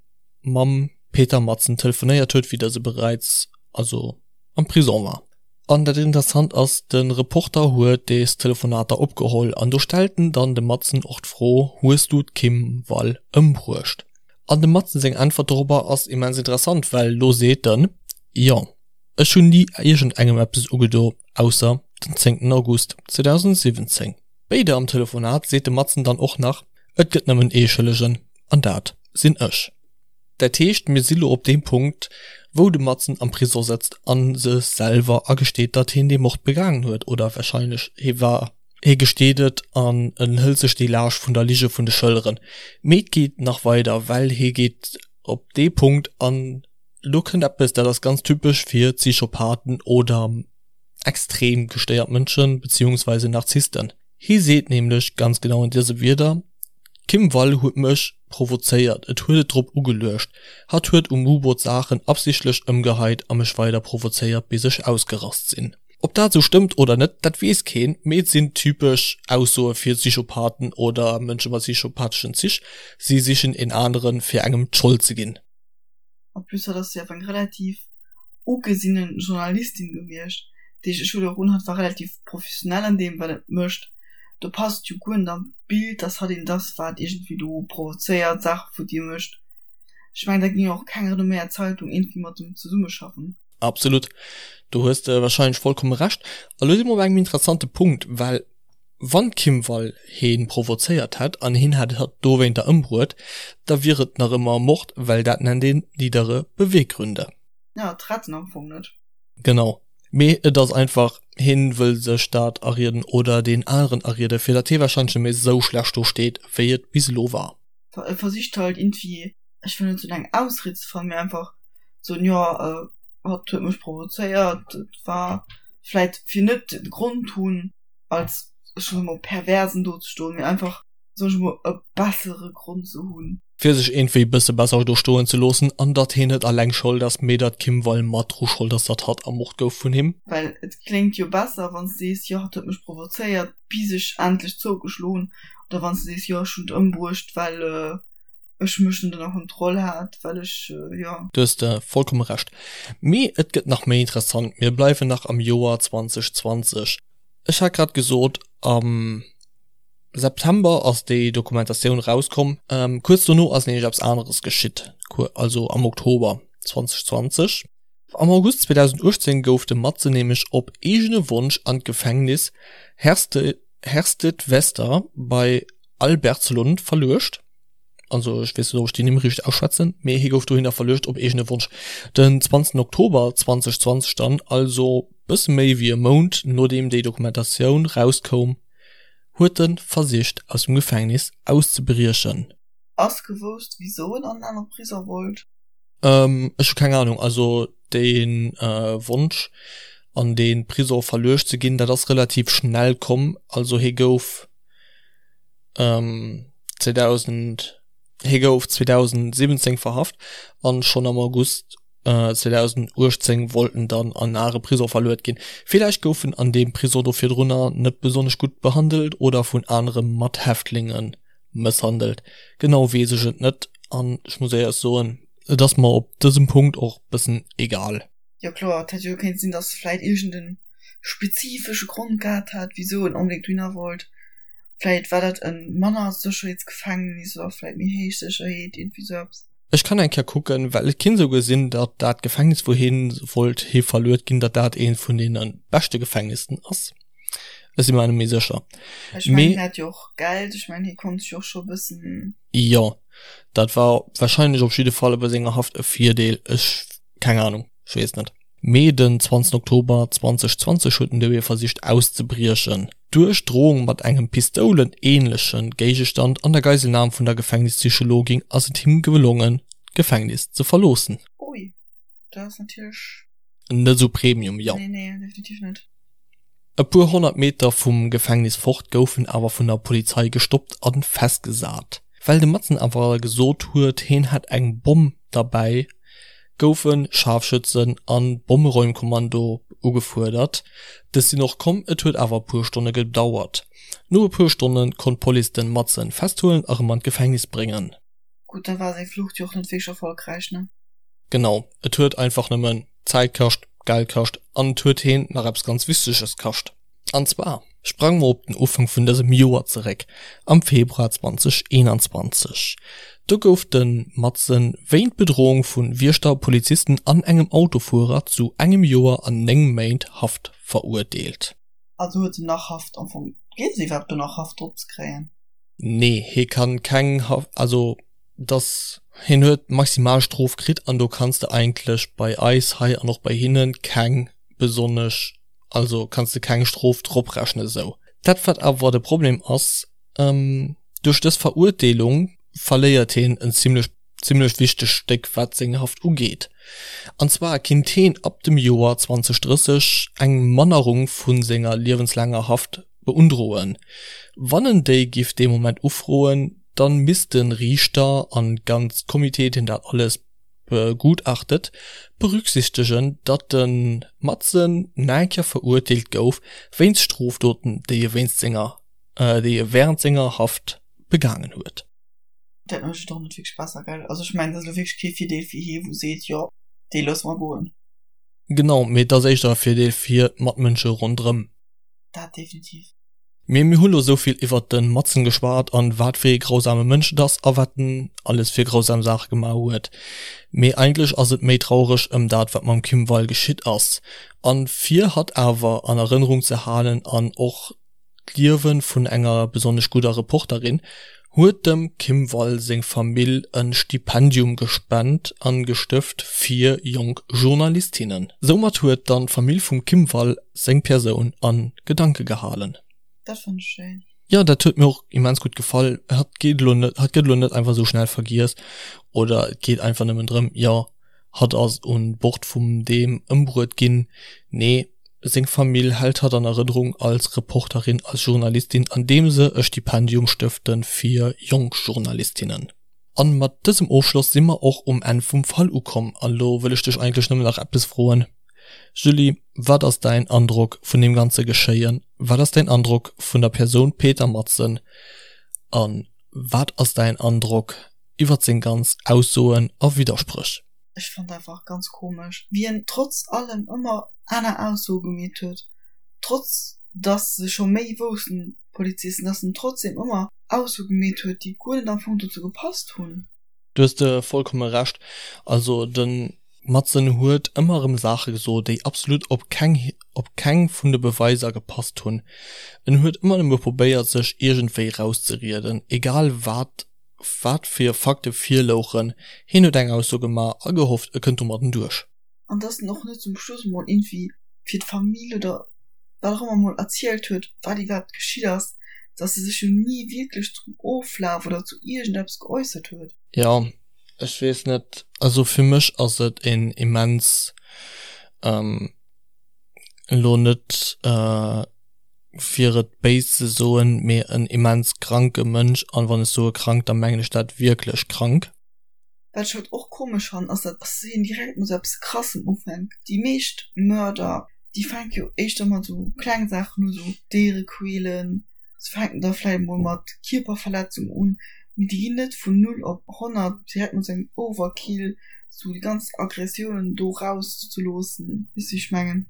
mam Peter Madsen telefonéiert huet, wéi dëse bereits also am Prison war. An dat Interessant ass, de Reporter huet des Telefonater opgeholl an do stellt en dann dem Madsen och d'Fro, Hues du d'Kim Wall ëmbruecht? An dem Madsen seng Äntwert dorobber ass immens interessant, well do seet en, Jo, ech hunn ni iergendengem eppes ugedo, ausser den zéngten August 2017. Béider am Telefonat seet de Madsen dann och nach, Et gëtt nëmmen ee Schëllegen, an dat sinn ech. Dat heescht, mir si lo op deem Punkt, wou de Madsen am Prisong sëtzt a sech selwer agesteet, datt hien dee Mord begaangen huet, oder warscheinlech hie war, hie gesteet et an en hëlt sech déi Laascht vun der Lige vun de Schëlleren. Mee et geet nach weider, well hie geet op dee Punkt an elo kënnt eppes, dat ass ganz typesch fir Psychopathen oder extrem gestéiert Mënschen, beziehungsweise Narzissten. Hie seet nämlech ganz genau an dëse Wierder, D'Kim Wall huet mech provozéiert, et huet et drop ugeluecht. Hatt huet um U-Boot Saachen absichtlech ëmgeheit a mech weider provozéiert bis ech ausgerast sinn. Ob dat esou stëmmt oder net, dat weess keen, mee et sinn typesch Aussoe fir Psychopathen oder Mënsche mat psychopatheschen Zich, si sichen een aneren fir engem d'Schold ze ginn. En plus hatt ass jo awer eng relativ ugesinne Journalistin gewiescht, déi ech elo och un, hatt war relativ professionell an deem wat et mécht. Do passt jo guer net an d'Bild, dass hatt een ass, wat iergendwéi do provozéiert, Saache futti mécht. Ech mengen, da géing och keng renomméiert Zeitung iergendwéi mat em zesummeschaffen. Absolut, do hues de wahrscheinlech vollkomme Recht. A lo si mer op engem interessante Punkt, well wann d'Kim Wall hee provozéiert hätt an hien hätt hatt dowéinter ëmbruet, da wier et nach ëmmer Mord, well dat nennt een niedere Beweggründe. Ja, d'retten am Fong net. Genau. Mee et ass einfach, hien wëll sech dat arieden oder deen aneren arieden, fir datt hie warscheinlech net méi esou schlecht do steet, wéi et bis elo war. E versicht halt iergendwéi, ech wëll net soen eng Ausried ze fannen, mee einfach soen, jo, hatt huet mech provozéiert, et war vläit fir net de Grond hunn als, ech soe mol, Perversen do ze stoen, mee einfach soen ech mol, e bessere Grond ze hunn. Fir sech iergendwéi bësse besser do stoen ze loossen an datt hien net alleng Schold ass, mee datt d'Kim Wall mat dru Schold ass, datt hatt ermort gouf vun him. Well et kléngt jo besser, wann s de sees, jo, hatt huet mech provozéiert, bis ech endlech zougeschloen hunn, oder wann s de sees, jo, ech hunn et ëmbruecht, well ech mech net ënner Kontroll hat, well ech, jo. Do hues de vollkomme Recht. Mee et gëtt nach méi interessant, mir bleiwen nach am Joer 2020. Ech hat grad gesot, am. September ass déi Dokumentatioun rauskomm. Kuerz dono ass nämlech eppes aneres geschitt, also am Oktober 2020. Am August 2018 gouf de Madsen nämlech op eegene Wonsch an d'Gefängnis Herstedvester bei Albertslund verluecht. Also ech weess net ob ech déi Nimm richteg ausschwätzen, mee hie gouf dohinner verluecht op eegene Wonsch. Den 20 Oktober 2020 dann, also bësse méi wéi e Mount nodeem déi Dokumentatioun rauskoum, huet en versicht aus dem Gefängnis auszebriechen. Ass gewousst wisou en an en anere Prisong wollt? Ech hu keng Ahnung. Also dee Wonsch an dee Prisong verluecht ze ginn, dat ass relativ schnell komm. Also hie gouf 2000, hie gouf 2017 verhaft an schonn am August 2018 wollt en dann an are Prisong verluet ginn. Villäicht gouf en an deem Prisong do virdrunner net besonnesch gutt behandelt oder vun anere Mathäftlinge mësshandelt, genau weess ech et net an ech muss éierlech soen, et ass mer op dësem Punkt och bëssen egal. Jo kloer, et hätt jo kéint sinn, dass vläit iergend en spezifesche Grond gehat hat, wisou en onbedéngt dohinner wollt. Vläit war dat e manner Sécherheetsgefängnis oder vläit méi héich Sécherheet, iergendwéi sou eppes. Ech kann eng Kéier kucken, well et kinnt esouguer sinn, datt dat Gefängnis, wou hien wollt hi verluet ginn, datt dat eent vun deene beschte Gefängnissen ass. Ech si mer net méi sécher. Ech mengen, hien hat jo och Geld, ech mengen, hie konnt sech och scho e bëssen. Jo, dat war wahrscheinlech op jidde Fall bei senger Haft e Virdeel. Ech, keng Ahnung, ech weess net. Mee den 20 Oktober 2020 huet den Dewey versicht auszebriechen. Duerch Drohung mat engem pistoulenähnleche Géigestand an der Geiselnam vun der Gefängnispsychologin ass et him gelongen, d'Gefängnis ze verloossen. Ui, dat ass natierlech. Net esou Premium, jo. Nee, nee, definitiv net. E puer 100 Meter vum Gefängnis fort gouf en awer vun der Polizei gestoppt a festgesat. Well de Madsen awer gesot huet, hien hätt eng Bomm derbäi, goufe Scharfschützen an Bommeräumkommando ugefuerdert. Dës sinn och komm, et huet awer e puer Stonne gedauert. No e puer Stonne konnt d'Police den Madsen festhuelen a rëm an d'Gefängnis bréngen. Gutt, da war seng Flucht jo och net wierklech erfolgräich, ne? Genau, et huet einfach nëmmen Zäit kascht, Geld kascht an et huet heen nach eppes ganz Wichteges kascht. An zwar sprange mer op den Ufank vun dësem Joer zeréck, am Februar 2021. Do gouf de Madsen wéint Bedrohung vu Wiechter, Polizisten an engem Autofuerer zu engem Joer an 9 Méint Haft verurteelt. Also huet en nach Haft am Fong? Geet et iwwerhaapt do nach Haft drop ze kréien? Nee, hie kann keng Haft, also dass hien huet d'Maximalstrof kritt an do kanns de eigentlech bei eis hei an och bei hinne keng besonnesch, also kanns de keng Strof drop rechnen esou. Dat wat awer de Problem ass, duerch dës Verurteelung verléiert hien en zimlech zimlech wichtegt Stéck wat seng Haft ugeet. An zwar kinnt hien ab dem Joer 2030 eng Mannerung vu senger liewenslaanger Haft beundroen. Wann en déi giff dee Moment ufroen, dann misst de Riichter an ganz Comité deen dat alles begutachtet berücksichtegen, datt de Madsen naenker verurteelt gouf wéinst Strofdoten déi e wéinst senger déi e während senger Haft begaangen huet. Dat mécht et och net wierklech besser, gell? Also ech mengen, dat ass elo wierklech kee Virdeel fir hie wou seet, jo dee loosse mer goen. Genau, mee et ass éischter e Virdeel fir d'Matmënsche ronderëm. Dat definitiv. Mee mir hu lo sou vill iwwert de Madsen geschwat an wat fir ee grausame Mënsch et ass a wat en alles fir grausam Saache gemaach huet. Mee eigentlech ass et méi traureg ëm dat wat mam Kim Wall geschitt ass. An fir hatt awer an Erënnerung ze halen an och d'Liewe vun enger besonnesch gudder Reporterin. huet dem Kim Wall seng Famill en Stipendium gespent an gestëft fir jonk Journalistinnen. Soumat huet dann d'Famill vum Kim Wall seng Persoun an Gedanke gehalen. Dat fannt ech schéin. Jo, dat huet mir och immens gutt gefall. Hatt geet elo net, hatt gëtt elo net einfach esou schnell vergiess oder et geet einfach nëmmen drëm, jo, hatt ass un Bord vum deem ëmbruet ginn. Nee, seng Famill hält hatt an Erënnerung als Reporterin, als Journalistin, andeem se e Stipendium stëfte fir jonk Journalistinnen. An mat dësem Ofschloss si mer och um Enn vum Fall ukomm. An elo wëll ech dech eigentlech nëmmen nach eppes froen, Julie, wat ass däin Androck vun deem ganze Geschéien? Wat ass däin Androck vun der Persoun Peter Madsen? A wat ass däin Androck iwwert seng ganz Aussoen a Widderspréch? Ech fand einfach ganz komesch wéi en trotz allem ëmmer aner Aussoe gemeet huet, trotz dass se scho méi woussten, d'Polizisten, dass en trotzdem ëmmer Aussoe gemeet huet, déi guer net am Fong dozou gepasst hunn. Du hues de vollkomme Recht. Also de Madsen huet ëmmer erëm Saache gesot, déi absolut op keng op keng vun de Beweiser gepasst hunn. En huet ëmmer nëmme probéiert sech iergendwéi rauszerieden, egal wat wat fir Fakte virlouchen, hien huet eng Ausso gemaach a gehofft e kënnt domadden duerch. An dass en och net zum Schluss emol iergendwéi fir d'Famill oder wat och ëmmer emol erzielt huet, wat iwwerhaapt geschitt ass, dass e sech jo ni wierklech zum Oflaf oder zu iergendeppes geäussert huet. Jo, ech weess net, also fir mech ass et een immens, elo net fir et béis ze soen, mee en immens kranke Mënsch, an wann ech soe krank, da mengen ech dat wierklech krank. Wat ech halt och komesch fannen ass dat hien direkt mat sou eppes krassem ufänkt. Déi meescht Mörder déi fänke jo éischter mat sou kleng Saachen u, sou Déiere quälen, se fänken da vläit mol mat Kierperverletzung un, mee déi ginn net vun 0 op 100 direkt mat sou engem Overkill, sou déi ganz Aggressiounen do raus ze loossen, weess wéi ech mengen.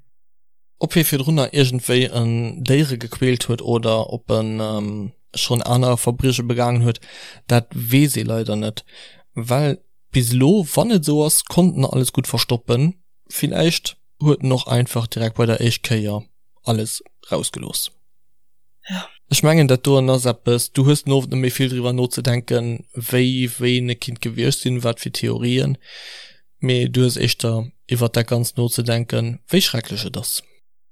Ob hie virdrunner iergendwéi en Déiere gequält huet oder ob en schonn aner Verbrieche begaangen huet, dat weess ee leider net, well bis elo, wann et esou ass, konnt en alles gutt verstoppen. Villäicht huet en och einfach direkt bei der éischt Kéier alles rausgelooss. Ech mengen dat doen ass eppes, du hues den Owend net méi vill driwwer nozedenken, wéi ween e kinnt gewiescht sinn, wat fir Theorien, mee du hues éischter iwwert dat Ganzt nozedenken, wéi schrecklech et ass.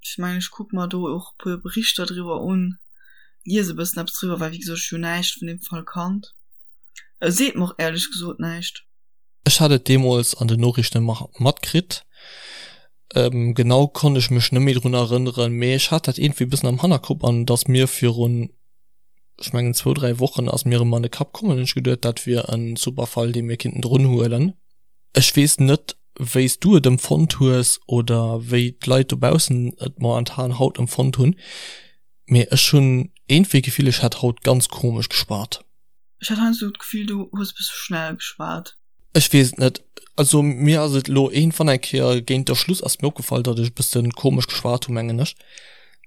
Ech mengen ech kucke mer do och e puer Berichter driwwer un, lies e bëssen eppes driwwer, well wéi gesot ech hu näischt vun deem Fall kannt. E seet mer och éierlech gesot näischt. Ech hat et deemools an den Noriichten matkritt. Genau konnt ech mech net méi drun erënneren, mee ech hat dat iergendwéi e bëssen am Hannerkopp an et ass mir virun, ech mengen zwou, dräi Wochen ass mir erëm an de Kapp komm an hunn ech geduet, dat wier e super Fall, dee mir kinnten drun huelen. Ech weess net, wéi s du et empfonnt hues oder wéi d'Leit dobaussen et momentan haut empfonnt hunn, mee ech hunn iergendwéi d'Gefill, ech hätt haut ganz komesch geschwat. Ech hat heiansdo d'Gefill, du hues e bësse schnell geschwat. Ech weess et net. Also mir ass et elo iergendwann eng Kéier géint der Schluss ass mir opgefall, datt ech e bësse komesch geschwat hu mengen ech.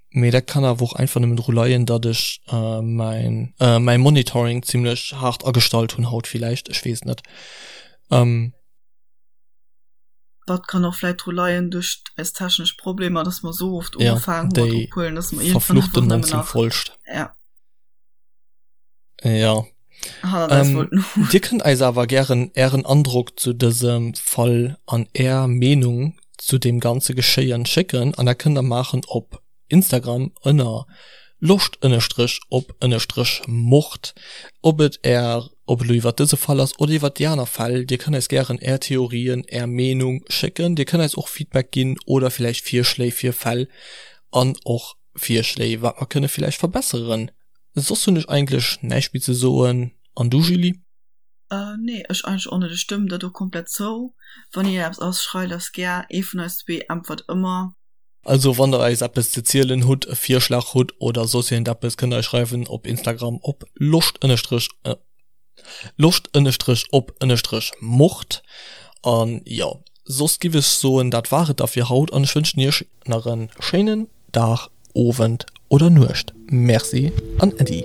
Mee dat kann awer och einfach nëmmen dru leien, datt ech mäin mäi Monitoring zimlech haart agestallt hunn haut villäicht, ech weess et net. Dat kann och vläit dru leien duerch eis technesch Problemer, datt mer esou oft ugefaangen hu mat ophuelen, datt mer iergendwann einfach nëmmen nach. Ja. Ja. Ähm, Dir kënnt eis awer gären Ären Androck zu dësem Fall an Är Meenung zu deem ganze Geschéien schécken an dat kënnt der maachen op Instagram ënner loscht ënnerstrech op ënnerstrech mord. Ob et Är, ob et elo iwwert dëse Fall ass oder iwwert déi aner Fäll, Dir kënnt eis gären Är Theorien, Är Meenung schécken. Dir kënnt eis och Feedback ginn oder villäicht Virschléi fir Fäll an och Virschléi wat mer kënne villäicht verbesseren. Soss hunn ech eigentlech näischt méi ze soen. An du Julie? Nee, ech eigentlech och net. Ech stëmmen der do komplett zou. Wann iergendeppes ass, schreift eis gär. Ee vun eis zwee äntwert ëmmer. Also wann der eis eppes ze zielen hutt, e Virschlag hutt oder soss iergendeppes, kënnt der eis schreiwen op Instagram op loscht ënnerstrech loscht ënnerstrech op ënnerstrech mord. An jo, soss giff ech soen, dat war et da fir haut an ech wënschen iech nach en schéinen Dag, Owend oder Nuecht. Merci an Äddi.